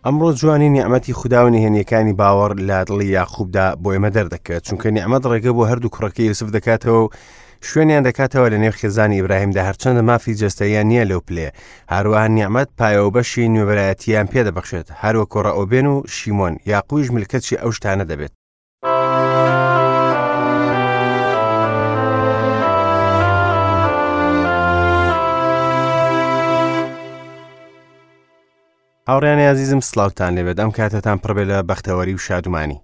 ئەمڕۆ جوانی نیعمەتی خودا و نهێنیەکانی باوەڕ لە دڵی یاقوبدا بۆ ئێمە دەردەکەوێت چونکە نیعمەت ڕێگە بۆ هەردوو کوڕەکەی یوسف دەکاتەوە و شوێنیان دەکاتەوە لە نێو خێزانی ئیبراهیمدا هەرچەندە مافی جەستەیان نییە لەو پلەیە هەروەها نیعمەت پایە و بەشی نوێبەرایەتیان پێدەبەخشێت هەروەکو ڕەئوبێن و شیمۆن یاقویش ملکەچی ئەو شتانە دەبێت. هاوڕیانی ئازیزم سلااوان لێبێت ئەم کاتتان پڕبێ لە بەختەوەری و شادومانی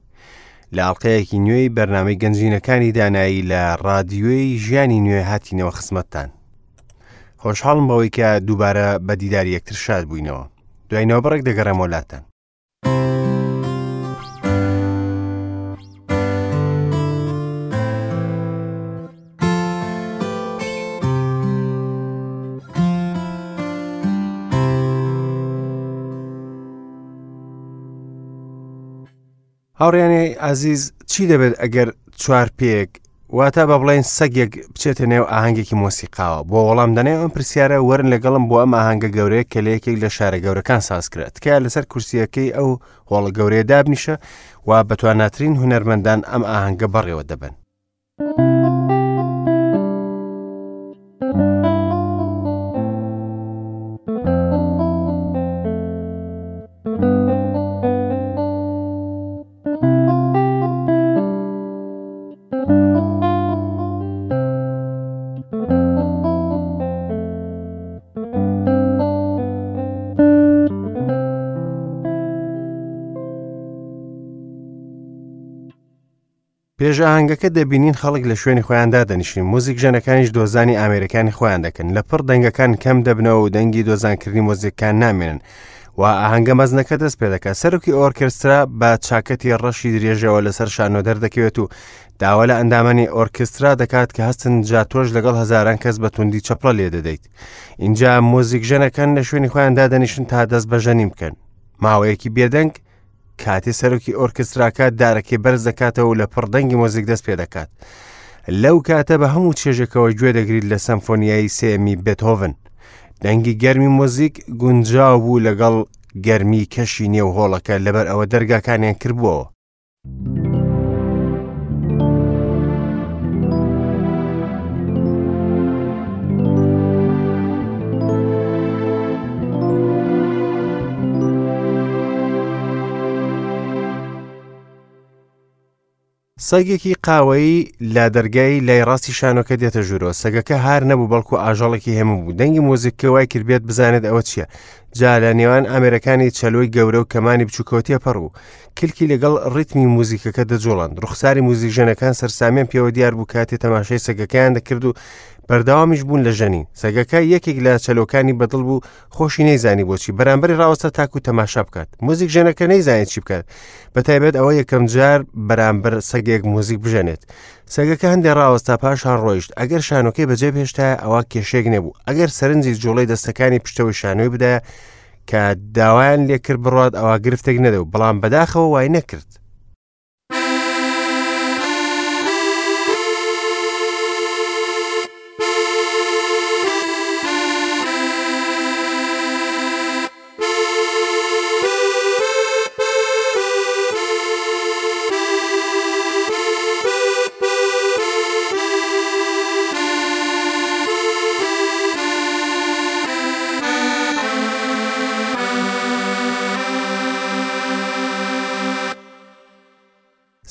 لە ئاڵلقەیەکی نوێی بەرنامەی گەنجینەکانی دانایی لە ڕادیۆی ژیانی نوێ هاتینەوە خزمەتتان خۆشحاڵم بەوەی کە دووبارە بە دیداری یەکتر شاد بووینەوە دوای نەوەبڕێک دەگەڕێمەوە لاتان هاوڕیانی ئازیز چی دەبێت ئەگەر چوار پێک واتە بە بڵێن سەگێک بچێتە نێو ئاهەنگێکی مۆسیقاوە بۆ وەڵام دەنێ ئەم پرسیارە وەرن لەگەڵم بۆ ئەم ئاهەنگە گەورەیە کە لە یەکێک لە شارە گەورەکان سازکرا تکایە لەسەر کورسیەکەی ئەو هۆڵە گەورەیە دابنیشە و بەتواناترین هونەرمەندان ئەم ئاهەنگە بەڕێوە دەبەن. پێش ئاهەنگەکە دەبینین خەڵک لە شوێنی خۆیان دادەنیشن موزیک ژەنەکانیش دۆزانی ئامێرەکانی خۆیان دەکەن لە پڕ دەنگەکان کەم دەبنەوە و دەنگی دۆزانکردنی مۆزیکان نامێنن و ئاهەنگە مەزنەکە دەست پێ دەکات سەرۆکی ئۆرکێسترا بە چاکەتی ڕەشی درێژەوە لەسەر شانۆ دەردەکەوێت و داوا لە ئەندامانی ئۆرکێسترا دەکات کە هەستن جا تۆش لەگەڵ هەزاران کەس بە توندی چەپڵە لێ دەدەیت اینجا مۆزیکژەنەکان لە شوێنی خۆیان دادەنیشن تا دەست بە ژەنین بکەن ماوەیەکی بێدەنگ کاتێ سەرۆکی ئۆرکستراکە دارەکەی بەرز دەکاتەوە و لە پڕ دەنگی مۆزیک دەست پێ دەکات لەو کاتە بە هەموو چێژێکەوە گوێ دەگریت لە سەمفۆنیایی سێمی بێتهۆڤن دەنگی گەرمی مۆزیک گونجاو بوو لەگەڵ گەرمی کەشی نێو هۆڵەکە لەبەر ئەوە دەرگاکانیان کردبووەوە سەگێکی قاوەیی لە دەرگای لای ڕاستی شانۆکە دێتە ژوورەوە سەگەکە هار نەبوو بەڵکو ئاژەڵێکی هێمن بوو دەنگی مۆزیکەکە وای کرد بێت بزانێت ئەوە چییە جا لە نێوان ئامێرەکانی چەلۆی گەورە و کەمانی بچووکەوە تێپەڕ بوو کلکی لەگەڵ ڕیتمی موزیکەکە دەجوڵاند ڕوخساری موزیکژەنەکان سەرسامیان پێوە دیار بوو کاتێ تەماشای سەگەکەیان دەکرد و بەردەوامیش بوون لە ژەنین سەگەکە یەکێک لە چەلۆکانی بەدڵ بوو خۆشی نەیزانی بۆچی بەرامبەری ڕاوەستا تاکو تەماشا بکات موزیک ژەنەکە نەیزانێت چی بکات بە تایبەت ئەوە یەکەم جار بەرامبەر سەگێک موزیک بژەنێت سەگەکە هەندێ ڕاوەستا پاشان ڕۆیشت ئەگەر شانۆکەی بەجێ بهێشتایە ئەوە کێشێک نەبوو ئەگەر سەرنجی جوڵەی دەستەکانی پشتەوەی شانۆی بدایە کە داوایان لێکرد بڕات ئەوە گرفتێک نەدەبوو بەڵام بەداخەوە وای نەکرد.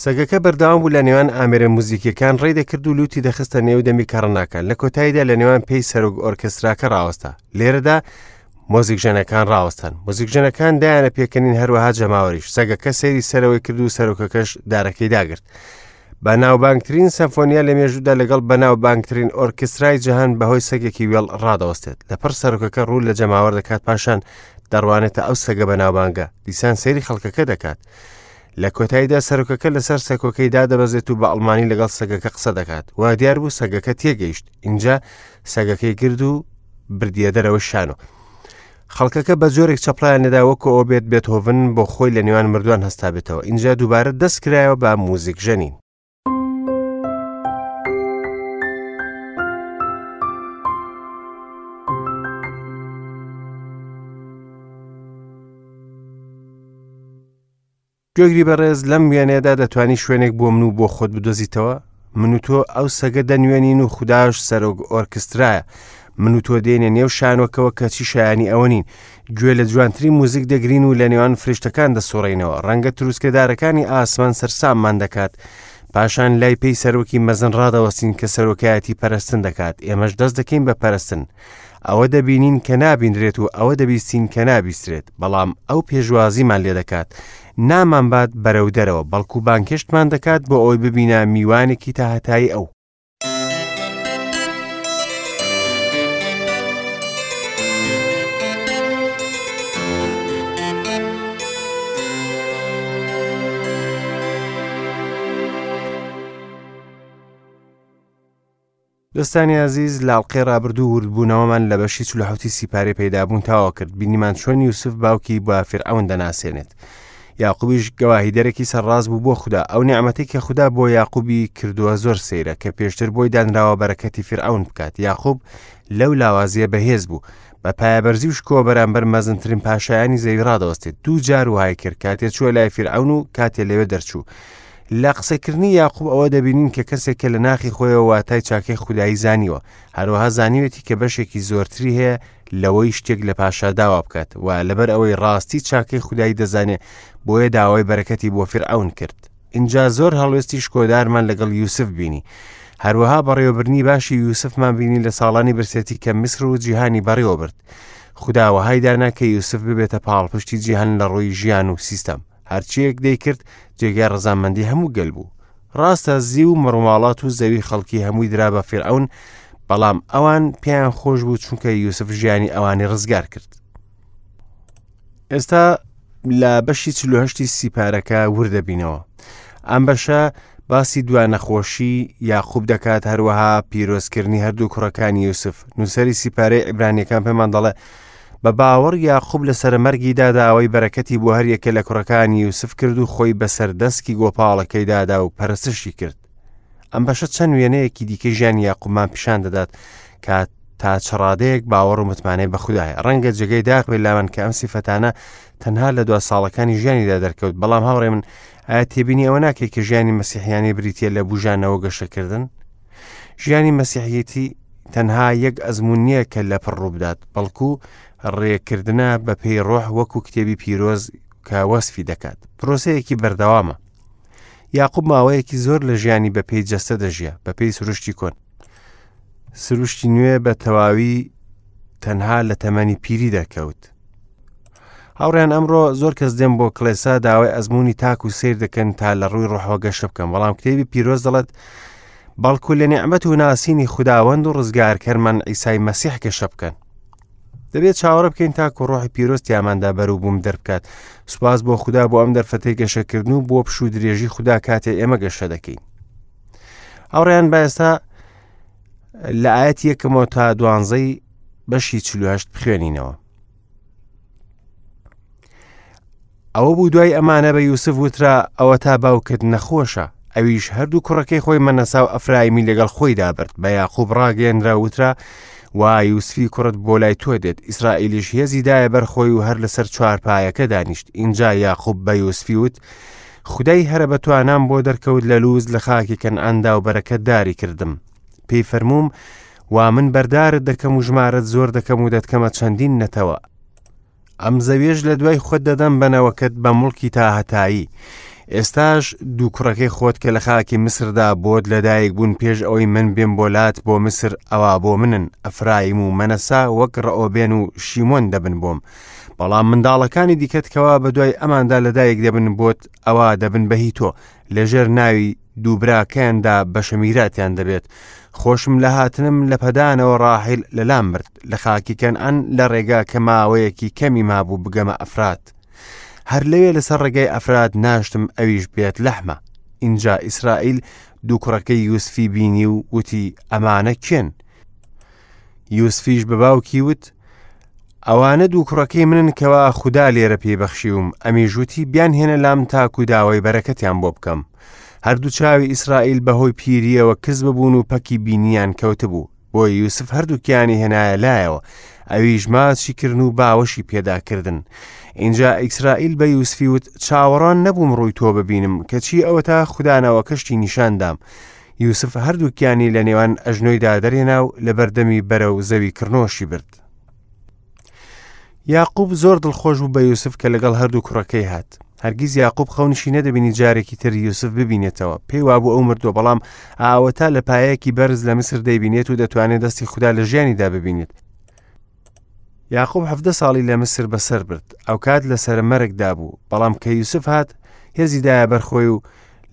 سەگەکە بەردەوام بوو لە نێوان ئامێرە موزیکیەکان ڕێی دەکرد و لوتی دەخستە نێو دەمی کەڕناکان لە کۆتاییدا لە نێوان پێی سەرۆک ئۆرکێستراکە ڕاوەستا لێرەدا مۆزیکژەنەکان ڕاوەستان مۆزیکژەنەکان دایانە پێکەنین هەروەها جەماوەریش سەگەکە سەیری سەرەوەی کرد و سەرۆکەکەش دارەکەی داگرت بەناوبانگترین سەمفۆنیا لە مێژوودا لەگەڵ بەناوبانگترین ئۆرکسترای جیهان بەهۆی سەگێکی وێڵ ڕادەوەستێت لەپڕ سەرۆکەکە ڕوو لە جەماوەر دەکات پاشان دەڕوانێتە ئەو سەگە بەناوبانگە دیسان سەیری خەڵکەکە دەکات لە کۆتاییدا سەرۆکەکە لەسەر سەکۆکەی دادەبەزێت و بە ئەڵمانی لەگەڵ سەگەکە قسە دەکات وا دیار بوو سەگەکە تێگەیشت ئینجا سەگەکەی گرد و بردیە دەرەوەی شانۆ خەڵکەکە بە جۆرێک چەپڵیان لێدا وەکو ئەوە بێت بێتهۆڤن بۆ خۆی لە نێوان مردووان هەستابێتەوە ئینجا دووبارە دەست کرایەوە بە موزیک ژەنین. گوێگری بەڕێز لەم وێنەیەدا دەتوانی شوێنێک بۆ من و بۆ خۆت بدۆزیتەوە؟ من و تۆ ئەو سەگە دەنوێنین و خوداش سەرۆک ئۆرکسترایە. من و تۆ دێنە نێو شانۆکەوە کەچی شایانی ئەوە نین. گوێ لە جوانترین موزیک دەگرین و لە نێوان فریشتەکان دەسوڕێینەوە. ڕەنگە تروسکەدارەکانی ئاسمان سەرساممان دەکات. پاشان لای پێی سەرۆکی مەزن ڕادەوەستین کە سەرۆکایەتی پەرستن دەکات. ئێمەش دەست دەکەین بە پەرستن. ئەوە دەبینین کە نابینرێت و ئەوە دەبیستین کە نابیسترێت، بەڵام ئەو پێشوازیمان لێ دەکات، نامانبات بەرەو دەرەوە، بەڵکو بانگهێشتمان دەکات بۆ ئەوەی ببینە میوانێکی تاهەتایی ئەو. دۆستانی ئازیز لە ئەڵقەی ڕابردوو وردبوونەوەمان لە بەشی 47 سیپارەی پەیدابوون تەواو کرد بینیمان چۆن یوسف باوکی بە فیرعەون دەناسێنێت یاقوبیش گەواهیدەرێکی سەرڕاست بوو بۆ خودا ئەو نیعمەتەی کە خودا بۆ یاقوبی کردووە زۆر سەیرە کە پێشتر بۆی دانراوە بەرەکەتی فیرعەون بکات یاقوب لەو لاوازیە بەهێز بوو بە پایەبەرزی و شکۆ بەرامبەر مەزنترین پاشایانی زەوی ڕادەوەستێت دوو جار وهای کرد کاتێ چووە لای فیرعەون و کاتێ لەوێ دەرچوو لە قسەکردنی یاقوب ئەوە دەبینین کە کەسێک کە لە ناخی خۆیەوە واتای چاکەی خودایی زانیوە هەروەها زانیوێتی کە بەشێکی زۆرتری هەیە لەوەی شتێک لە پاشا داوا بکات و لەبەر ئەوەی ڕاستی چاکەی خودایی دەزانێ بۆیە داوای بەرەکەتی بۆ فیرعەون کرد ئینجا زۆر هەڵوێستی شکۆدارمان لەگەڵ یوسف بینی هەروەها بەڕێوەبردنی باشی یوسفمان بینی لە ساڵانی برسێتی کە میسر و جیهانی بەڕێوە برد خودا وەهای دانا کە یوسف ببێتە پاڵپشتی جیهان لە ڕووی ژیان و سیستەم هەرچیەک دەیکرد جێگای ڕەزامەندی هەموو گەل بوو ڕاستە زیو و مەڕوماڵات و زەوی خەڵکی هەمووی درا بە فیرعەون بەڵام ئەوان پێیان خۆش بوو چونکە یوسف ژیانی ئەوانی ڕزگار کرد ئێستا لە بەشی 48 سیپارەکە وردەبینەوە ئەم بەشە باسی دوا نەخۆشی یاقوب دەکات هەروەها پیرۆزکردنی هەردوو کوڕەکانی یوسف نووسەری سیپارەی عیبرانیەکان پێمان دەڵێ بە باوەڕ یاقوب لە سەرەمەرگیدا داوای بەرەکەتی بۆ هەریەکە لە کوڕەکانی یوسف کرد و خۆی بەسەر دەسکی گۆپاڵەکەی دادا و پەرستشی کرد ئەم بەشە چەند وێنەیەکی دیکە ژیانی یاقوبمان پیشان دەدات کە تا چ ڕادەیەک باوەڕ و متمانەی بە خودایە ڕەنگە جێگەی داخ بێت لامان کە ئەم سیفەتانە تەنها لە دوا ساڵەکانی ژیانیدا دەرکەوت بەڵام هاوڕێ من ئایا تێبینی ئەوە ناکەی کە ژیانی مەسیحیانی بریتە لە بژانەوە گەشەکردن ژیانی مەسیحیەتی تەنها یەک ئەزمون نییە کە لە پڕ ڕووبدات بەڵکو ڕێکردنە بە پێی ڕۆح وەکو کتێبی پیرۆز کە وەسفی دەکات پرۆسەیەکی بەردەوامە یاقوب ماوەیەکی زۆر لە ژیانی بە پێی جەستە دەژیا بە پێی سروشتی کۆن سروشتی نوێ بە تەواوی تەنها لە تەمەنی پیری دەکەوت هاوڕیان ئەمڕۆ زۆر کەس دێن بۆ کڵێسا داوای ئەزمموی تاک و سیر دەکەن تا لە ڕووی ڕۆحەوە گەشە بکەن بەڵام کتێبی پیرۆز دەڵێت بەڵکو لە نیعمەت و ناسینی خوداوەند و ڕزگارکەرمان ئیسای مەسیح گەشە بکەن دەبێت چاوەڕێ بکەین تاکو ڕۆحی پیرۆز تیاماندا بەروبووم دەربکات سوپاس بۆ خودا بۆ ئەم دەرفەتەی گەشەکردن و بۆ پشوو درێژی خودا کاتێ ئێمە گەشە دەکەین هاوڕێیان با ئێستا لە ئاەت یەکەمەوە تا دوانزەی بەشی 48 بخوێنینەوە ئەوە بوو دوای ئەمانە بە یوسف وترا ئەوە تا باوکت نەخۆشە ئەویش هەردوو کوڕەکەی خۆی مەنەسا و ئەفرایمی لەگەڵ خۆیدا برد بە یاقوب ڕاگەیەنرا وترا وا یوسفی کوڕت بۆ لای تۆ دێت ئیسرائیلیش هێزی دایە بەر خۆی و هەر لەسەر چوارپایەکە دانیشت ئینجا یاقوب بە یوسفی وت خودای هەرە بەتوانام بۆ دەرکەوت لە لوز لە خاکی کەنعاندا و بەرەکەتداری کردم پێی فەرمووم وا من بەردارت دەکەم و ژمارەت زۆر دەکەم و دەتکەمە چەندین نەتەوە ئەم زەویەش لە دوای خۆت دەدەم بە نەوەکەت بە موڵکی تاهەتایی. ئێستاش دوو کوڕەکەی خۆت کە لە خاکی میسردا بۆت لەدایک بوون پێش ئەوەی من بێم بۆ لات بۆ میسر ئەوا بۆ منن، ئەفرایم و مەنەسا وەک ڕەئۆبێن و شیمۆن دەبن بۆم. بەڵام منداڵەکانی دیکەت کەوا بەدوای ئەماندا لەدایک دەبن بۆت ئەوا دەبن بە هی تۆ، لەژێر ناوی دوو براکەیاندا بەشە میراتیان دەبێت. خۆشم لە هاتنم لە پەدانەوە ڕاحیل لەلام مرد، لە خاکی کەنعان لە ڕێگا کە ماوەیەکی کەمی مابوو بگەمە ئەفرات. هەر لەوێ لەسەر ڕێگای ئەفرات ناشتم ئەویش بێت لەحمە. ئینجا ئیسرائیل دوو کوڕەکەی یوسفی بینی و وتی ئەمانە کێن؟ یوسفیش بە باوکی وت ئەوانە دوو کوڕەکەی منن کەوا خودا لێرە پێی بەخشیوم ئەمیش وتی بیانهێنە لام تاکو داوای بەرەکەتیان بۆ بکەم هەردوو چاوی ئیسرائیل بەهۆی پیریەوە کز ببوون و پەکی بینیان کەوتبوو بۆ یوسف هەردووکیانی هێنایە لایەوە ئەویش ماچی کردن و باوەشی پێدا کردن. ئینجا ئیسرائیل بە یوسفی وت، چاوەڕوان نەبووم ڕووی تۆ ببینم، کەچی ئەوەتا خودا نەوەکەشتی نیشان دام. یوسف هەردووکیانی لە نێوان ئەژنۆیدا دەرهێنا و لەبەردەمی بەرەو زەوی کڕنۆشی برد. یاقوب زۆر دڵخۆش بوو بە یوسف کە لەگەڵ هەردوو کوڕەکەی هات. هەرگیز یاقوب خەونیشی نەدەبینی جارێکی تر یوسف ببینێتەوە. پێی وابوو ئەو مردووە، بەڵام ئاوەتا لە پایەیەکی بەرز لە میسر دەیبینێت و دەتوانێت دەستی خودا لە ژیانیدا ببینێت. یاقوب حەڤدە ساڵی لە میسر بەسەر برد. ئەوکات لەسەر مەرگدا بوو، بەڵام کە یوسف هات هێزی دایە بەرخۆی و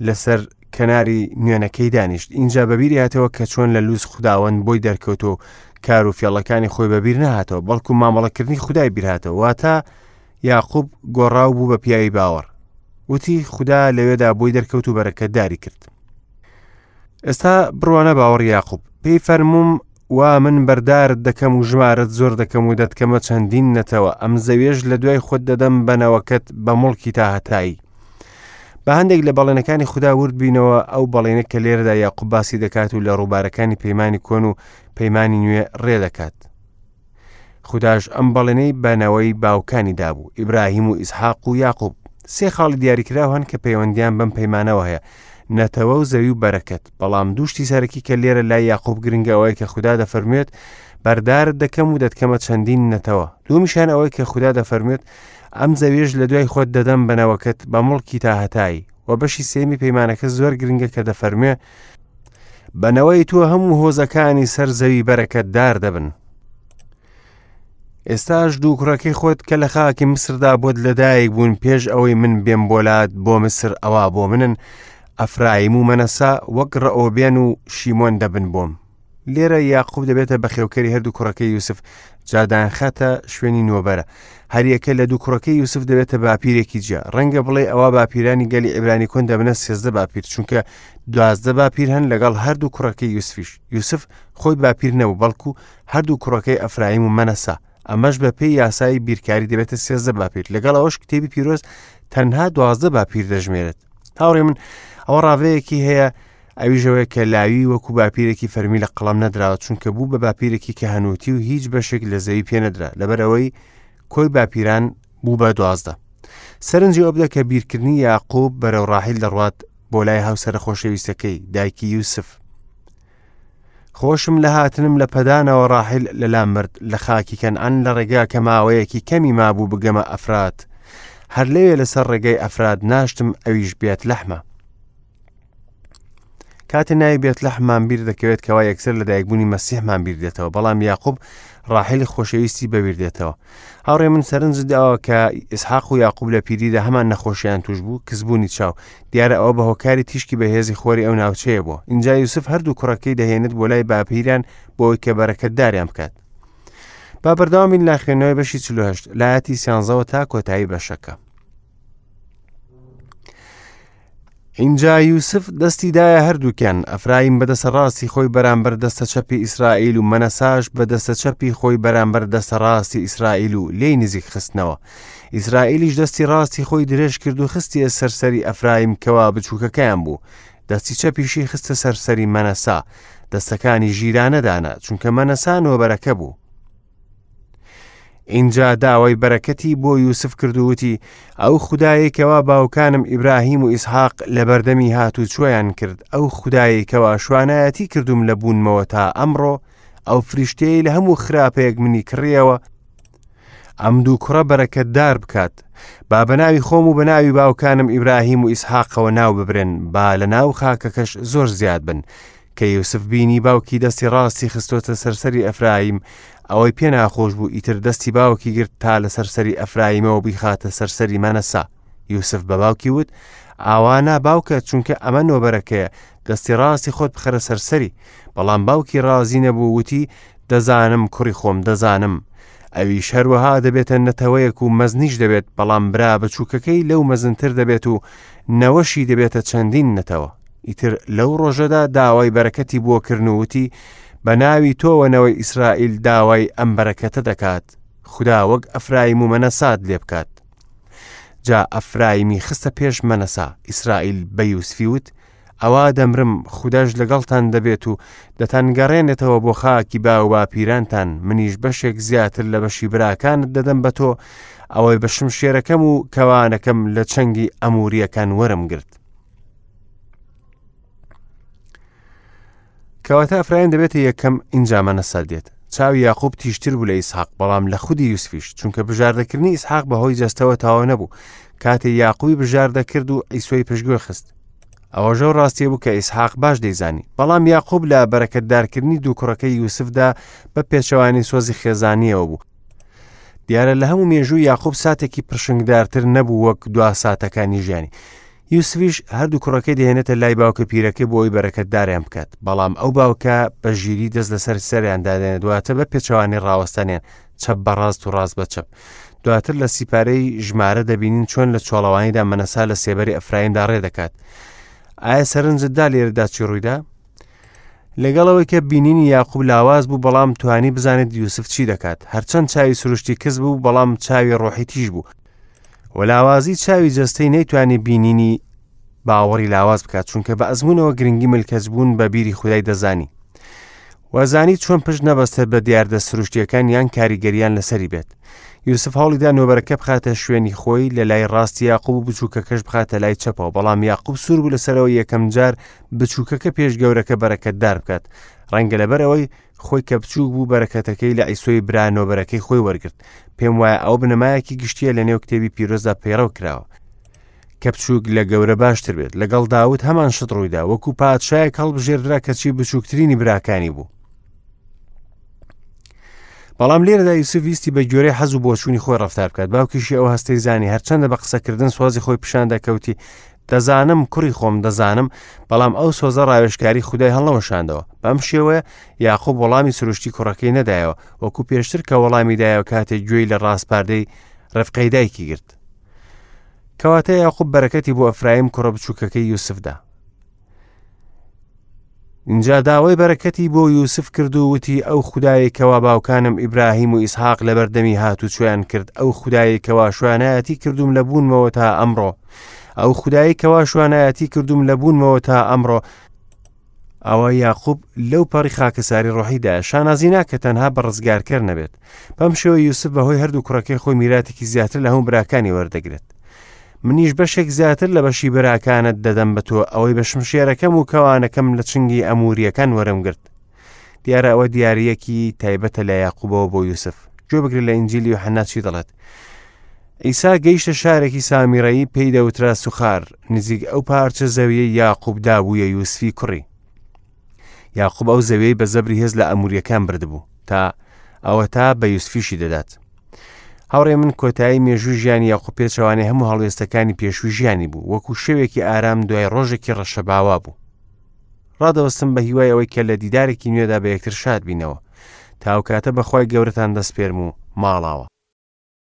لەسەر کەناری نوێنەکەی دانیشت. ئینجا بەبیری هاتەوە کە چۆن لە لوز خوداوەند بۆی دەرکەوت و کار و فێڵەکانی خۆی بەبیر نەهاتەوە، بەڵکو مامەڵەکردنی خودای بیرهاتەوە. واتە یاقوب گۆڕاو بوو بە پیاوی باوەڕ. وتی خودا لەوێدا بۆی دەرکەوت و بەرەکەتداری کرد. ئێستا بڕوانە باوەڕی یاقوب. پێی فەرمووم وا من بەردارت دەکەم و ژمارەت زۆر دەکەم و دەتکەمە چەندین نەتەوە، ئەم زەویەش لە دوای خۆت دەدەم بە نەوەکەت بە موڵکی تا هەتایی. با هەندێک لە بەڵێنەکانی خودا ورد بینەوە، ئەو بەڵێنە کە لێرەدا یاقوب باسی دەکات و لە ڕووبارەکانی پەیمانی کۆن و پەیمانی نوێ ڕێ دەکات. خوداش ئەم بەڵێنەی بە نەوەی باوکانی دابوو، ئیبراهیم و ئیسحاق و یاقوب. سێ خاڵی دیاریکراو هەن کە پەیوەندیان بەم پەیمانەوە هەیە، نەتەوە و زەوی و بەرەکەت. بەڵام دوو شتی سەرەکی کە لێرە لای یاقوب گرنگە ئەوەیە کە خودا دەفەرموێت بەردارت دەکەم و دەتکەمە چەندین نەتەوە. دوومیشان ئەوەی کە خودا دەفەرموێت ئەم زەویەش لە دوای خۆت دەدەم بە نەوەکەت بە موڵکی تا هەتایی. و بەشی سێیەمی پەیمانەکە زۆر گرنگە کە دەفەرموێ بە نەوەی تۆ هەموو هۆزەکانی سەر زەوی بەرەکەتدار دەبن. ئێستاش دوو کوڕەکەی خۆت کە لە خاکی میسردا بۆت لەدایک بوون پێش ئەوەی من بێم بۆلات بۆ میسر ئەوا بۆ منن، ئەفرایم و مەنەسە وەک ڕەئۆبێن و شیمۆن دەبن بۆم. لێرە یاقوب دەبێتە بەخێوکەری هەردوو کوڕەکەی یوسف، جا دایانخاتە شوێنی نۆبەرە. هەریەکە لە دوو کوڕەکەی یوسف دەبێتە باپیرێکی جیا. ڕەنگە بڵێ ئەوا باپیرانی گەلی عیبرانی کۆن دەبنە 13 باپیر، چونکە 12 باپیر هەن لەگەڵ هەردوو کوڕەکەی یوسفیش. یوسف خۆی باپیر نەبوو، بەڵکو هەردوو کوڕەکەی ئەفرایم و مەنەسە. ئەمەش بە پێی یاسای بیرکاری دەبێتە 13 باپیر. لەگەڵ ئەوەش کتێبی پیرۆز تەنها 12 باپیر دەژمێرێت. هاوڕێ من ئەوە ڕاڤەیەکی هەیە ئەویش ئەوەیە کە لاوی وەکو باپیرێکی فەرمی لە قەڵەم نەدراوە، چونکە بوو بە باپیرێکی کەهەنووتی و هیچ بەشێک لە زەوی پێ نەدرا، لەبەرئەوەی کۆی باپیران بوو بە 12. سەرنجی ئەوە بدە کە بیرکردنی یاقوب بەرەو ڕاحیل دەڕوات بۆ لای هاوسەرە خۆشەویستەکەی، دایکی یوسف. خۆشم لە هاتنم لە پەدانەوە ڕاحیل لەلام مرد لە خاکی کەنعان لە ڕێگا کە ماوەیەکی کەمی مابوو بگەمە ئەفرات. هەر لەوێ لەسەر ڕێگەی ئەفرات ناشتم ئەویش بێت لەحمە. کاتێ ناوی بێتلەحممان بیر دەکەوێت کەوا یەکسەر لەدایکبوونی مەسیحمان بیر دێتەوە، بەڵام یاقوب ڕاحیلی خۆشەویستی بەبیر دێتەوە. هاوڕێ من سەرنجت داوە کە ئیسحاق و یاقوب لە پیریدا هەمان نەخۆشیان توش بوو، کزبوونی چاو. دیارە ئەوە بە هۆکاری تیشکی بەهێزی خۆری ئەو ناوچەیە بووە. ئینجا یوسف هەردوو کوڕەکەی دەهێنێت بۆ لای باپیران بۆ ئەوەی کە بەرەکەتداریان بکات. با بەردەوام بین لە خوێندنەوەی بەشی 48 لە ئایەتی سیانزەوە تا کۆتایی بەشەکە. ئینجا یوسف دەستی دایە هەردووکیان، ئەفرایم بە دەستە ڕاستی خۆی بەرامبەر دەستە چەپی ئیسرائیل و مەنەساش بە دەستە چەپی خۆی بەرامبەر دەستە ڕاستی ئیسرائیل و لێی نزیک خستنەوە. ئیسرائیلیش دەستی ڕاستی خۆی درێژ کرد و خستیە سەر سەری ئەفرایم کەوا بچووکەکەیان بوو، دەستی چەپیشی خستە سەر سەری مەنەسا، دەستەکانی ژیرانە دانا، چونکە مەنەسا نۆبەرەکە بوو. ئینجا داوای بەرەکەتی بۆ یوسف کرد و وتی، ئەو خودایەی کەوا باوکانم ئیبراهیم و ئیسحاق لەبەردەمی هاتوچۆیان کرد، ئەو خودایەی کەوا شوانایەتی کردووم لە بوونمەوە تا ئەمڕۆ، ئەو فریشتەیەی لە هەموو خراپەیەک منی کڕیەوە، ئەم دوو کوڕە بەرەکەتدار بکات. با بە ناوی خۆم و بە ناوی باوکانم ئیبراهیم و ئیسحاقەوە ناو ببرێن، با لە ناو خاکەکەش زۆر زیاد بن. کە یوسف بینی باوکی دەستی ڕاستی خستۆتە سەر سەری ئەفرایم، ئەوەی پێ ناخۆش بوو، ئیتر دەستی باوکی گرت تا لەسەر سەری ئەفرایمەوە بیخاتە سەر سەری مەنەسا. یوسف بە باوکی وت، ئاوا نا باوکە، چونکە ئەمە نۆبەرەکەیە، دەستی ڕاستی خۆت بخەرە سەر سەری. بەڵام باوکی ڕازی نەبوو، وتی، دەزانم کوڕی خۆم، دەزانم. ئەویش هەروەها دەبێتە نەتەوەیەک و مەزنیش دەبێت، بەڵام برا بچووکەکەی لەو مەزنتر دەبێت و نەوەشی دەبێتە چەندین نەتەوە. ئیتر لەو ڕۆژەدا داوای بەرەکەتی بۆ کردن و وتی، بە ناوی تۆوە نەوەی ئیسرائیل داوای ئەم بەرەکەتە دەکات، خودا وەک ئەفرایم و مەنەسات لێ بکات. جا ئەفرایمی خستە پێش مەنەسا. ئیسرائیل بە یوسفی وت، ئەوا دەمرم، خوداش لەگەڵتان دەبێت و دەتانگەڕێنێتەوە بۆ خاکی باوباپیرانتان، منیش بەشێک زیاتر لە بەشی براکانت دەدەم بە تۆ، ئەوەی بە شمشێرەکەم و کەوانەکەم لە چنگی ئەموریەکان وەرم گرت. کەواتە ئەفرایم دەبێتە یەکەم ئینجا مەنەسە دێت. چاوی یاقوب تیژتر بوو لە ئیسحاق، بەڵام لە خودی یوسفیش، چونکە بژاردەکردنی ئیسحاق بەهۆی جەستەوە تەواو نەبوو، کاتێ یاقوبی بژاردە کرد و عیسۆی پشتگوێ خست. ئەوەش ئەو ڕاستیە بوو کە ئیسحاق باش دەیزانی. بەڵام یاقوب لە بەرەکەتدارکردنی دوو کوڕەکەی یوسفدا بە پێچەوانەی سۆزی خێزانییەوە بوو. دیارە لە هەموو مێژووی یاقوب ساتێکی پرشنگدارتر نەبوو وەک دوا ساتەکانی ژیانی. یوسفیش هەردوو کوڕەکەی دەهێنێتە لای باوکە پیرەکەی بۆ ئەوی بەرەکەتداریان بکات بەڵام ئەو باوکە بە ژیری دەست لەسەر سەریان دادێنێت دواتر بە پێچەوانی ڕاوەستانیان چەپ بە ڕاست و ڕاست بە چەپ دواتر لە سیپارەی ژمارە دەبینین چۆن لە چۆڵەوانیدا مەنەسا لە سێبەری ئەفرایندا ڕێ دەکات ئایا سەرنجت دا لێرەدا چی ڕوویدا لەگەڵ ئەوەی کە بینینی یاقوب لاواز بوو بەڵام توانی بزانێت یوسف چی دەکات هەرچەند چاوی سروشتی کز بوو بەڵام چاوی ڕۆحی تیژ بوو و لاوازی چاوی جەستەی نەیتوانی بینینی باوەڕی لاواز بکات چونکە بە ئەزمونەوە گرنگی ملکەچبوون بە بیری خودای دەزانی وازانی چۆن پشت نەبەستێت بە دیاردە سروشتیەکان یان کاریگەریان لەسەری بێت یوسف هەوڵیدا نۆبەرەکە بخاتە شوێنی خۆی لە لای ڕاستی یاقوب و بچووکەکەش بخاتە لای چەپەوە بەڵام یاقوب سوور بوو لەسەرەوە یەکەم جار بچووکەکە پێش گەورەکە بەرەکەتدار بکات ڕەنگە لەبەر ئەوەی خۆی کە بچووک بوو بەرەکەتەکەی لە عیسۆی برا نۆبەرەکەی خۆی وەرگرت پێم وایە ئەو بنەمایەکی گشتیە لە نێو کتێبی پیرۆزدا پەیڕەو کراوە کە بچووک لە گەورە باشتر بێت لەگەڵ داود هەمان شت ڕوویدا وەکو پادشایەک هەڵبژێردرا کەچی بچووکترینی براکانی بوو بەڵام لێرەدا یوسف ویستی بە گوێرەی حەز و بۆچوونی خۆی ڕفتار بکات باوکیشی ئەو هەستەی زانی هەرچەندە بە قسەکردن سۆزی خۆی پیشان دەکەوتی دەزانم کوڕی خۆم دەزانم بەڵام ئەو سۆزە ڕاوێژکاری خودای هەڵنەوەشاندەوە بەم شێوەیە یاقوب وەڵامی سروشتی کوڕەکەی نەدایەوە وەکو پێشتر کە وەڵامی دایەوە کاتێک گوێی لە ڕاسپاردەی ڕفقەی دایکی گرت کەواتە یاقوب بەرەکەتی بۆ ئەفرایم کوڕە بچووکەکەی یوسفدا ئینجا داوای بەرەکەتی بۆ یوسف کرد و وتی ئەو خودایەی کەوا باوکانم ئیبراهیم و ئیسحاق لەبەردەمی هاتوچۆیان کرد ئەو خودایەی کەوا شوانایەتی کردوم لە بوونمەوە تا ئەمڕۆ ئەو خودایەی کەوا شوانایەتی کردوم لە بوونمەوە تا ئەمڕۆ ئەوە یاقوب لەو پەڕی خاکەساری ڕۆحیدا شانازی ناکە تەنها بە ڕزگارکەر نەبێت بەم شێوە یوسف بەهۆی هەردوو کوڕەکەی خۆی میراتێکی زیاتر لە هەموو براکانی وەردەگرێت منیش بەشێک زیاتر لە بەشی براکانت دەدەم بە تۆ ئەوەی بە شمشێرەکەم و کەوانەکەم لە چنگی ئەموریەکان وەرم گرت دیارە ئەوە دیارەکی تایبەتە لە یاقوبەوە بۆ یوسف گوێ بگرە لە ئینجیلی یوحەنا چی دەڵێت ئیسا گەیشتە شارێکی سامیرەیی پێی دەوترا سوخار نزیک ئەو پارچە زەویەی یاقوب دابوویە یوسفی کوڕی یاقوب ئەو زەویەی بە زەبری هێز لە ئەموریەکان بردبوو تا ئەوە تا بە یوسفیشی دەدات هاوڕێ من کۆتایی مێژووی ژیانی یاقوب پێچەوانەی هەموو هەڵوێستەکانی پێشووی ژیانی بوو وەکو شەوێکی ئارام دوای ڕۆژێکی ڕەشەباوا بوو ڕادەوەستم بە هیوای ئەوەی کە لە دیدارێکی نوێدا بە یەکتر شاد بینەوە تاوکاتە بەخوای گەورەتان دەسپێرم و ماڵاوە.